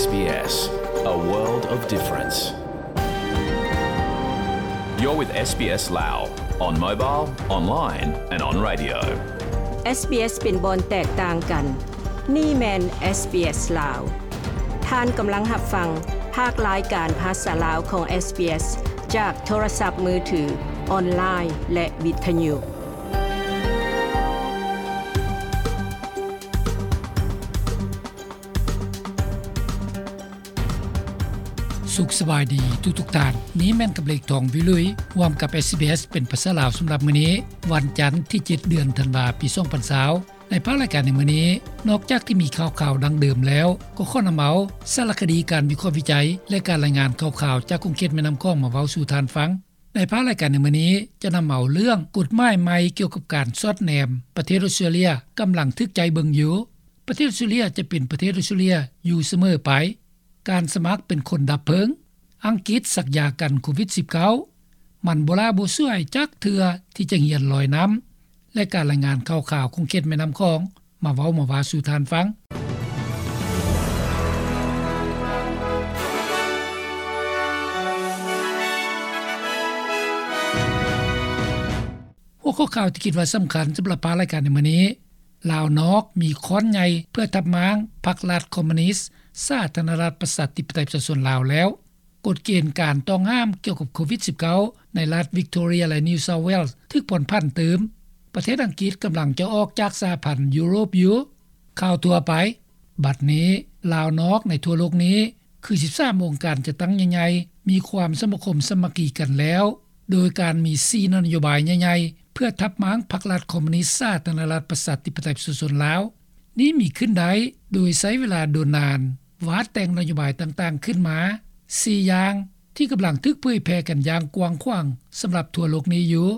SBS, a world of difference. You're with SBS Lao on mobile, online and on radio. SBS ເປັນບ່ອນແຕກຕ່າງກັນ. ນີ້ແມ່ນ SBS ລາວ. ທ່ານກຳລັງຮັບຟັງພາກລາຍການພາສາລາວຂອງ SBS ຈາກໂທລະສັບມືຖື, ອອນລາຍ ແລະ ວິທະຍຸ. ສຸກສະບາຍດີທຸກໆທ່ານ. ນີ້ແມ່ນກັບເລກທອງ ວິລຸຍ ຮ່ວມກັບ SBS ເປັນພາສາລາວສຳລັບມື້ນີ້, ວັນຈັນທີເຈັດ ເດືອນທັນວາ ປີສອງພັນຊາວ. ໃນພາກລາຍການໃນມື້ນີ້, ນອກຈາກທີ່ມີຂ່າວໆດັ່ງເດີມແລ້ວ, ກໍຂໍນຳເອົາສາລະຄະດີ, ການວິເຄາະວິໄຈ ແລະ ການລາຍງານຂ່າວໆຈາກຂົງເຂດແມ່ນ້ຳຂອງມາເວົ້າສູ່ທ່ານຟັງ. ໃນພາກລາຍການໃນມື້ນີ້ ຈະນຳເອົາເລື່ອງກົດໝາຍໃໝ່ກ່ຽວກັບການສອດແນມປະເທດອົດສະຕຣາເລຍ ກຳລັງຖືກໃຈເບິ່ງຢູ່. ປະເທດອົດສະຕຣາເລຍຈະເປັນປະເທດອົດສະຕຣາເລຍຢູ່ສະເໝີໄປ. ການສະໝັກເປັນຄົນດັບເພີງ. ອັງກິດສັກຢາກັນໂຄວິດສິບເກົ້າ. ມັນບໍ່ຫຼ້າບໍ່ສວຍຈັກເທື່ອທີ່ຈະຮຽນລອຍນ້ຳ ແລະ ການລາຍງານຂ່າວໆຂົງເຂດແມ່ນ້ຳຂອງ ມາເວົ້າມາວ່າສູ່ທ່ານຟັງ. ຫົວຂໍ້ຂ່າວທີ່ຄິດວ່າສຳຄັນສຳລັບພາກລາຍການໃນມື້ນີ້, ລາວນອກມີຄ້ອນໃຫຍ່ເພື່ອທັບມ້າງພັກລັດຄອມມູນິດສາທາລະນະລັດປະຊາທິປະໄຕປະຊາຊົນລາວແລ້ວ. ກົດເກນການຕ້ອງຫ້າມກ່ຽວກັບໂຄວິດສິບເກົ້າ ໃນລັດວິກໂທເຣຍ ແລະ ນິວເຊົາເວລສ໌ ຖືກຜ່ອນຜັນຕື່ມ. ປະເທດອັງກິດກຳລັງຈະອອກຈາກສະຫະພັນຢູໂຣບຢູ່. ຂ່າວທົ່ວໄປ. ບັດນີ້, ລາວນອກໃນທົ່ວໂລກນີ້ ຄືສິບສາມອົງການຈັດຕັ້ງໃຫຍ່ໆ ມີຄວາມສະມາຄົມສາມັກຄີກັນແລ້ວ, ໂດຍການມີສີ່ນະໂຍບາຍໃຫຍ່ໆ ເພື່ອທັບມ້າງພັກລັດຄອມມູນິດສາທາລະນະລັດປະຊາທິປະໄຕປະຊາຊົນລາວ. ນີ້ມີຂຶ້ນໄດ້ໂດຍໃຊ້ເວລາດົນນານ ວາດແຕ່ງນະໂຍບາຍຕ່າງໆຂຶ້ນມາສີ່ຢ່າງ ທີ່ກຳລັງຖືກເຜີຍແຜ່ກັນຢ່າງກວ້າງຂວາງສຳລັບທົ່ວໂລກນີ້ຢູ່.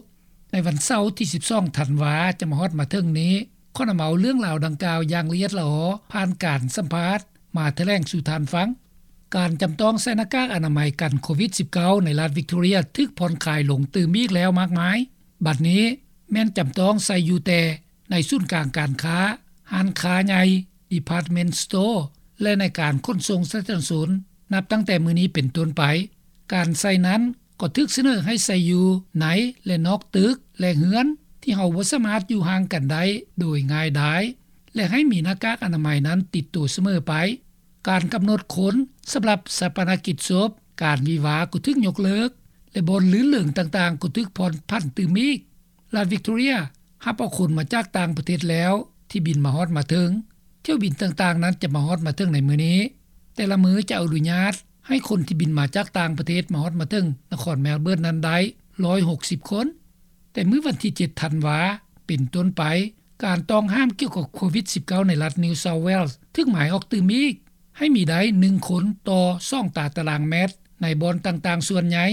ໃນວັນເສົາທີສິບສອງທັນວາ ຈະມາຮອດມາເຖິງນີ້, ຂໍນຳເອົາເລື່ອງລາວດັ່ງກ່າວຢ່າງລະອຽດລະອໍ ຜ່ານການສຳພາດມາຖະແຫຼງສູ່ທ່ານຟັງ. ການຈຳຕ້ອງໃສ່ໜ້າກາກອະນາໄມກັນໂຄວິດສິບເກົ້າ ໃນລັດວິກໂທເຣຍ ຖືກຜ່ອນຄາຍລົງຕື່ມອີກແລ້ວມາກມາຍ. ບັດນີ້ແມ່ນຈຳຕ້ອງໃສ່ຢູ່ແຕ່ ໃນສູນກາງການຄ້າ, ຮ້ານຄ້າໃຫຍ່, department store ແລະ ໃນການຂົນສົ່ງສາທາລະນະຊົນ. ນັບຕັ້ງແຕ່ມື້ນີ້ເປັນຕົ້ນໄປ, ການໃສ່ນັ້ນກໍຖືກສະເໜີໃຫ້ໃສ່ຢູ່ໃນ ແລະ ນອກຕຶກ ແລະ ເຮືອນ ທີ່ເຮົາບໍ່ສາມາດຢູ່ຫ່າງກັນໄດ້ໂດຍງ່າຍດາຍ ແລະ ໃຫ້ມີໜ້າກາກອະນາໄມນັ້ນຕິດໂຕສະເໝີໄປ. ການກຳນົດຄົນສຳລັບຊາປະນະກິດສົບ, ການວິວາກໍຖືກຍົກເລີກ ແລະ ບ່ອນລື່ນເລີງຕ່າງໆກໍຖືກຜ່ອນຜັນຕື່ມອີກ. ລັດວິກໂທເຣຍຮັບເອົາຄົນມາຈາກຕ່າງປະເທດແລ້ວທີ່ບິນມາຮອດມາເຖິງ. ຖ້ຽວບິນຕ່າງໆນັ້ນຈະມາຮອດມາເຖິງໃນມື້ນີ້. ແຕ່ລະມື້ຈະອະນຸຍາດໃຫ້ຄົນທີ່ບິນມາຈາກຕ່າງປະເທດມາຮອດມາເຖິງນະຄອນແມລເບີນນັ້ນໄດ້ຮ້ອຍຫົກສິບຄົນ. ແຕ່ມື້ວັນທີເຈັດທັນວາເປັນຕົ້ນໄປ, ການຕ້ອງຫ້າມກ່ຽວກັບໂຄວິດສິບເກົ້າ ໃນລັດນິວເຊົາເວລສ໌ ຖືກໝາຍອອກຕື່ມອີກ ໃຫ້ມີໄດ້ໜຶ່ງຄົນຕໍ່ສອງຕາຕະລາງແມັດ ໃນບ່ອນຕ່າງໆສ່ວນໃຫຍ່.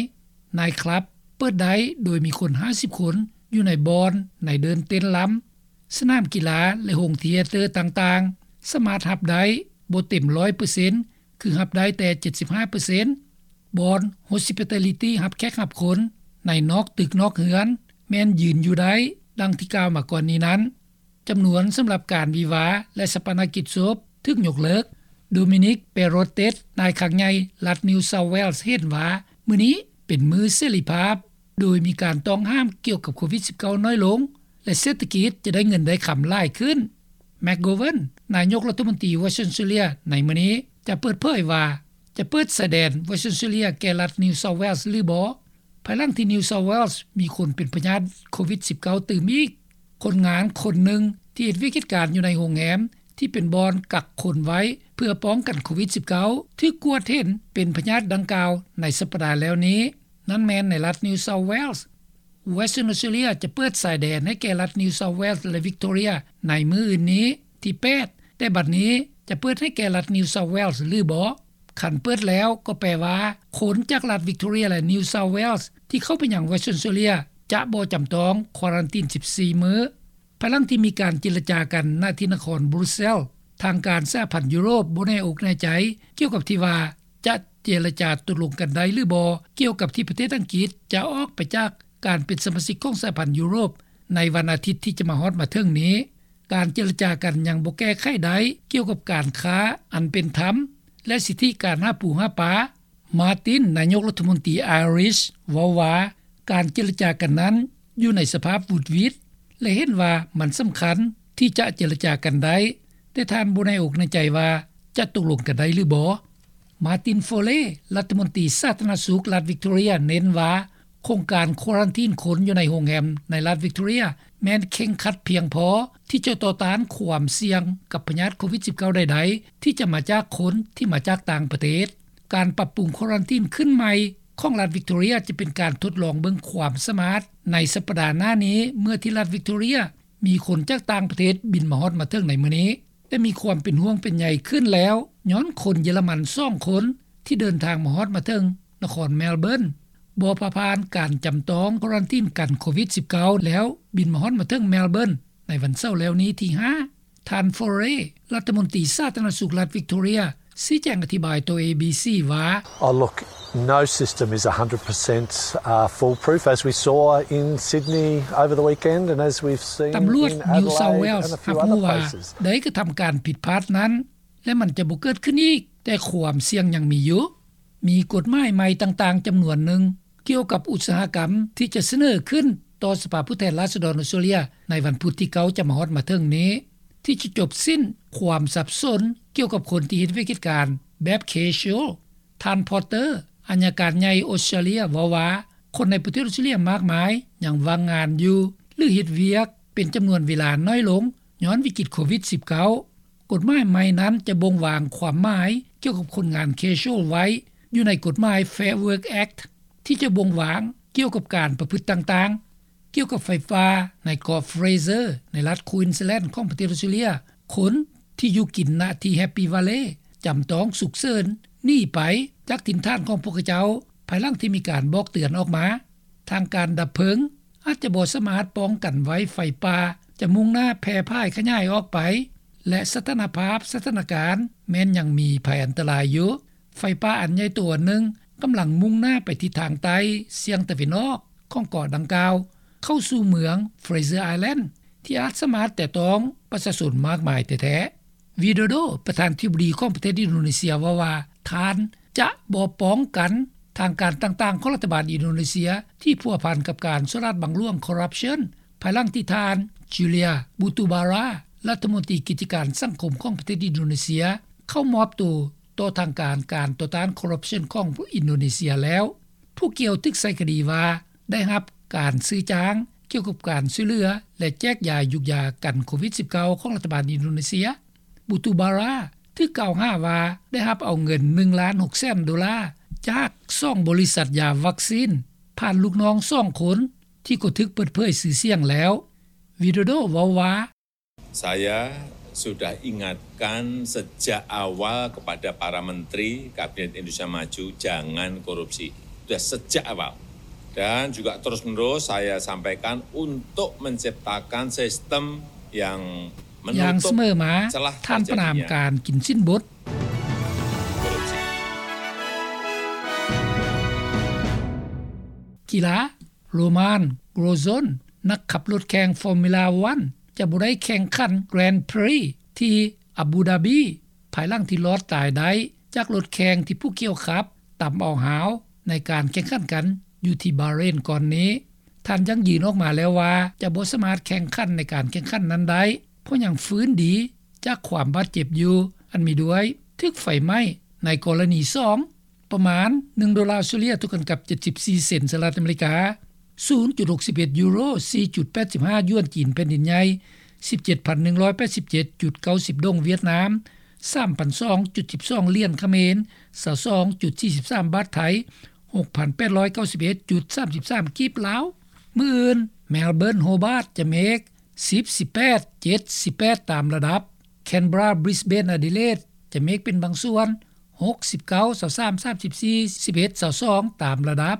ໄນຄລັບເປີດໄດ້ໂດຍມີຄົນຫ້າສິບຄົນຢູ່ໃນບ່ອນ ໃນເດີ່ນເຕັ້ນລຳ. ສະໜາມກິລາ ແລະ ໂຮງທຽເຕີຕ່າງໆ ສາມາດຮັບໄດ້ບໍ່ເຕັມຮ້ອຍເປີເຊັນ ຄືຮັບໄດ້ແຕ່ເຈັດສິບຫ້າເປີເຊັນ. ບ່ອນ hospitality ຮັບແຂກຮັບຄົນໃນນອກຕຶກນອກເຮືອນ ແມ່ນຢືນຢູ່ໄດ້ ດັ່ງທີ່ກ່າວມາກ່ອນນີ້ນັ້ນ. ຈຳນວນສຳລັບການວິວາ ແລະ ຊາປະນະກິດສົບຖືກຍົກເລີກ. ໂດມິນິກ ເປໂຣເຕັດ ນາຍຄັງໃຫຍ່ລັດນິວເຊົາເວລສ໌ ເຫັນວ່າມື້ນີ້ເປັນມື້ເສລີພາບ ໂດຍມີການຕ້ອງຫ້າມກ່ຽວກັບໂຄວິດສິບເກົ້ານ້ອຍລົງ ແລະ ເສດຖະກິດຈະໄດ້ເງິນໄດ້ຄຳຫຼາຍຂຶ້ນ. ແມັກໂກເວີນ ນາຍົກລັດຖະມົນຕີວອສເຕຣເລຍໃນມື້ນີ້ ຈະເປີດເຜີຍວ່າ ຈະເປີດຊາຍແດນວອສເຕຣເລຍແກ່ລັດນິວເຊົາເວລສ໌ຫຼືບໍ່ ພາຍຫຼັງທີ່ນິວເຊົາເວລສ໌ມີຄົນເປັນພະຍາດໂຄວິດສິບເກົ້າຕື່ມອີກ. ຄົນງານຄົນໜຶ່ງທີ່ເຮັດວຽກເຮັດການຢູ່ໃນໂຮງແຮມທີ່ເປັນບ່ອນກັກຄົນໄວ້ເພື່ອປ້ອງກັນໂຄວິດສິບເກົ້າ ຖືກກວດເຫັນເປັນພະຍາດດັ່ງກ່າວໃນສັບປະດາແລ້ວນີ້. ນັ້ນແມ່ນໃນລັດນິວເຊົາເວລສ໌. ວອສເຕຣເລຍຈະເປີດຊາຍແດນໃຫ້ແກ່ລັດນິວເຊົາເວລສ໌ ແລະ ວິກໂທເຣຍໃນມື້ອື່ນນີ້ ທີແປດ, ແຕ່ບັດນີ້ຈະເປີດໃຫ້ແກ່ລັດນິວເຊົາເວລສ໌ຫຼືບໍ່? ຄັນເປີດແລ້ວກໍແປວ່າ ຄົນຈາກລັດວິກໂທເຣຍ ແລະ ນິວເຊົາເວລສ໌ ທີ່ເຂົ້າໄປຍັງວອສເຕຣເລຍ ຈະບໍ່ຈຳຕ້ອງຄວາຣັນຕີນສິບສີ່ມື້. ພາຍຫຼັງທີ່ມີການເຈລະຈາກັນ ນະທີ່ນະຄອນບຣູເຊລ, ທາງການສະຫະພັນຢູໂຣບບໍ່ແນ່ອົກແນ່ໃຈກ່ຽວກັບທີ່ວ່າ ຈະເຈລະຈາຕົກລົງກັນໄດ້ຫຼືບໍ່ ກ່ຽວກັບທີ່ປະເທດອັງກິດຈະອອກໄປຈາກການເປັນສະມາຊິກຂອງສະຫະພັນຢູໂຣບ ໃນວັນອາທິດທີ່ຈະມາຮອດມາເຖິງນີ້. ການເຈລະຈາກັນຍັງບໍ່ແກ້ໄຂໄດ້ກ່ຽວກັບການຄ້າອັນເປັນທຳ ແລະ ສິດທິການຫາປູຫາປາ. ມາຕິນ ນາຍົກລັດຖະມົນຕີໄອຣິຊ ເວົ້າວ່າ ການເຈລະຈາກັນນັ້ນຢູ່ໃນສະພາບຫວຸດຫວິດ ແລະ ເຫັນວ່າມັນສຳຄັນທີ່ຈະເຈລະຈາກັນໄດ້, ແຕ່ທ່ານບໍ່ແນ່ອົກແນ່ໃຈວ່າຈະຕົກລົງກັນໄດ້ຫຼືບໍ່. ມາຕິນ ໂຟເລ ລັດຖະມົນຕີສາທາລະນະສຸກລັດວິກຕໍເຣຍ ເນັ້ນວ່າ ໂຄງການຄວາຣັນທີນຄົນຢູ່ໃນໂຮງແຮມໃນລັດວິກຕໍເຣຍ ແມ່ນເຄັ່ງຄັດພຽງພໍທີ່ຈະຕໍ່ຕ້ານຄວາມສ່ຽງກັບພະຍາດໂຄວິດສິບເກົ້າໃດໆ ທີ່ຈະມາຈາກຄົນທີ່ມາຈາກຕ່າງປະເທດ. ການປັບປຸງຄວາຣັນທີນຂຶ້ນໃໝ່ຂອງລັດວິກຕໍເຣຍ ຈະເປັນການທົດລອງເບິ່ງຄວາມສາມາດໃນສັບປະດາໜ້ານີ້ ເມື່ອທີ່ລັດວິກຕໍເຣຍມີຄົນຈາກຕ່າງປະເທດບິນມາຮອດມາເຖິງໃນມື້ນີ້. ແຕ່ມີຄວາມເປັນຫ່ວງເປັນໃຍຂຶ້ນແລ້ວ ຍ້ອນຄົນເຢຍລະມັນສອງຄົນທີ່ເດີນທາງມາຮອດມາເຖິງນະຄອນແມລເບີນ ບໍ່ຜ່າຜ່ານການຈຳຕ້ອງຄວາຣັນທີນກັນໂຄວິດສິບເກົ້າ ແລ້ວບິນມາຮອດມາເຖິງແມລເບີນໃນວັນເສົາແລ້ວນີ້ທີຫ້າ. ທ່ານ ໂຟເຣ ລັດຖະມົນຕີສາທາລະນະສຸກລັດວິກຕໍເຣຍ ຊີ້ແຈງອະທິບາຍຕໍ່ ເອບີຊີ ວ່າ Oh, look, no system is a hundred percent, uh, foolproof, as we saw in Sydney over the weekend and as we've seen in Adelaide and a few other places. ຕຳຫຼວດ New South Wales ຮັບຮູ້ວ່າໄດ້ກະທຳການຜິດພາດນັ້ນ ແລະ ມັນຈະບໍ່ເກີດຂຶ້ນອີກ, ແຕ່ຄວາມສ່ຽງຍັງມີຢູ່. ມີກົດໝາຍໃໝ່ຕ່າງໆຈຳນວນໜຶ່ງ ກ່ຽວກັບອຸດສາຫະກຳ ທີ່ຈະສະເໜີຂຶ້ນຕໍ່ສະພາຜູ້ແທນລາຊະດອນອອສເຕຣເລັຍ ໃນວັນພຸດທີເກົ້າຈະມາຮອດມາເຖິງນີ້ ທີ່ຈະຈົບສິ້ນຄວາມສັບສົນກ່ຽວກັບຄົນທີ່ເຮັດວຽກເຮັດການແບບ casual. ທ່ານ ພອດເຕີ ອັຍການໃຫຍ່ອອສເຕຣເລັຍ ເວົ້າວ່າ ຄົນໃນປະເທດອອສເຕຣເລັຍມາກມາຍຍັງວ່າງງານຢູ່ ຫຼື ເຮັດວຽກເປັນຈຳນວນເວລານ້ອຍລົງ ຍ້ອນວິກິດໂຄວິດສິບເກົ້າ. ກົດໝາຍໃໝ່ນັ້ນຈະບົ່ງວາງຄວາມໝາຍກ່ຽວກັບຄົນງານ casual ໄວ້ຢູ່ໃນກົດໝາຍ Fair Work Act ທີ່ຈະບົ່ງວາງກ່ຽວກັບການປະພຶດຕ່າງໆ. ກ່ຽວກັບໄຟປ່າໃນເກາະ Fraser ໃນລັດ Queensland ຂອງປະເທດອອສເຕຣເລັຍ, ຄົນທີ່ຢູ່ກິນນະທີ່ Happy Valley ຈຳຕ້ອງສຸກເສີນໜີໄປຈາກຖິ່ນຖານຂອງພວກເຂົາເຈົ້າ ພາຍຫຼັງທີ່ມີການບອກເຕືອນອອກມາ. ທາງການດັບເພີງອາດຈະບໍ່ສາມາດປ້ອງກັນໄວ້ໄຟປ່າຈະມຸ່ງໜ້າແຜ່ພາຍຂະຫຍາຍອອກໄປ ແລະ ສະຖານະພາບສະຖານະການແມ່ນຍັງມີໄພອັນຕະລາຍຢູ່. ໄຟປ່າອັນໃຫຍ່ໂຕອັນໜຶ່ງກຳລັງມຸ່ງໜ້າໄປທິດທາງໃຕ້ສ່ຽງຕາເວັນອອກຂອງເກາະດັ່ງກ່າວ ເຂົ້າສູ່ເມືອງ Fraser Island ທີ່ອາດສາມາດແຕະຕ້ອງປະຊາຊົນມາກມາຍແທ້ໆ. ວິໂດໂດ ປະທານທິບໍດີຂອງປະເທດອິນໂດເນເຊຍ ເວົ້າວ່າ ທ່ານຈະບໍ່ປ້ອງກັນທາງການຕ່າງໆຂອງລັດຖະບານອິນໂດເນເຊຍທີ່ພົວພັນກັບການສໍ້ລາດບັງຫຼວງ corruption ພາຍຫຼັງທີ່ທ່ານ Julia Batubara ລັດຖະມົນຕີກິດຈະການສັງຄົມຂອງປະເທດອິນໂດເນເຊຍ ເຂົ້າມອບໂຕຕໍ່ທາງການການຕໍ່ຕ້ານ corruption ຂອງອິນໂດເນເຊຍແລ້ວ. ຜູ້ກ່ຽວຖືກໃສ່ຄະດີວ່າ ໄດ້ຮັບການຊື້ຈ້າງກ່ຽວກັບການຊ່ວຍເຫຼືອ ແລະ ແຈກຢາຍຢູກຢາກັນໂຄວິດສິບເກົ້າຂອງລັດຖະບານອິນໂດເນເຊຍ. Batubara ຖືກກ່າວຫາວ່າໄດ້ຮັບເອົາເງິນໜຶ່ງລ້ານຫົກແສນໂດລາ ຈາກສອງບໍລິສັດຢາວັກຊີນ ຜ່ານລູກນ້ອງສອງຄົນທີ່ກໍຖືກເປີດເຜີຍຊື່ສຽງແລ້ວ. ວິໂດໂດ ເວົ້າວ່າ Saya sudah ingatkan sejak awal kepada para menteri Kabinet Indonesia Maju, jangan korupsi. Sudah sejak awal. Dan juga terus-menerus saya sampaikan untuk menciptakan sistem yang ຢ່າງສະເໝີມາ menutup celah ທ່ານປະນາມ terjadinya ການກິນສິນບົດ korupsi. ກິລາ Romain Grosjean ນັກຂັບລົດແຂ່ງ Formula One ຈະບໍ່ໄດ້ແຂ່ງຂັນ Grand Prix ທີ່ອາບູດາບີ ພາຍຫຼັງທີ່ລອດຕາຍໄດ້ຈາກລົດແຂ່ງທີ່ຜູ້ກ່ຽວຂັບຕຳເອົາຮາວໃນການແຂ່ງຂັນກັນຢູ່ທີ່ບາເຣນກ່ອນນີ້. ທ່ານຢັ້ງຢືນອອກມາແລ້ວວ່າຈະບໍ່ສາມາດແຂ່ງຂັນໃນການແຂ່ງຂັນນັ້ນໄດ້ ເພາະຍັງຟື້ນດີຈາກຄວາມບາດເຈັບຢູ່ ອັນມີດ້ວຍຖືກໄຟໄໝ້ໃນກໍລະນີສອງ ປະມານໜຶ່ງໂດລາອົດສະເຕຣເລັຽ ເທົ່າກັນກັບເຈັດສິບສີ່ເຊັນສະຫະລັດອາເມລິກາ, ສູນຈຸດຫົກສິບເອັດຢູໂຣ, ສີ່ຈຸດແປດສິບຫ້າຢວນຈີນແຜ່ນດິນໃຫຍ່, ສິບເຈັດພັນໜຶ່ງຮ້ອຍແປດສິບເຈັດຈຸດເກົ້າສິບດົງຫວຽດນາມ, ສາມພັນສອງຈຸດສິບສອງຫຼຽນຂະເໝນ, ຊາວສອງຈຸດສີ່ສິບສາມບາດໄທ, ຫົກພັນແປດຮ້ອຍເກົ້າສິບເອັດຈຸດສາມສິບສາມກີບລາວ. ມື້ອື່ນ ແມລເບີນ ໂຮບາດ ຈະເມກ ສິບ ສິບແປດ ເຈັດ ສິບແປດຕາມລະດັບ, ແຄນເບຣາ ບຣິສເບນ ອາດີເລດ ຈະເມກເປັນບາງສ່ວນ ຫົກ ສິບເກົ້າ ຊາວສາມ ສາມສິບສີ່ ສິບເອັດ ຊາວສອງຕາມລະດັບ,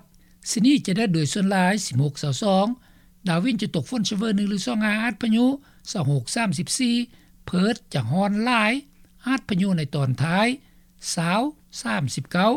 ຊິດນີ ຈະແດດໂດຍສ່ວນຫຼາຍ ສິບຫົກ ຊາວສອງ, ດາວິນ ຈະຕົກຝົນຊະເວີໜຶ່ງຫຼືສອງ ອາດພະຍຸ ຊາວຫົກ ສາມສິບສີ່, ເພີດ ຈະຮ້ອນຫຼາຍ ອາດພະຍຸໃນຕອນທ້າຍ ຊາວ ສາມສິບເກົ້າ.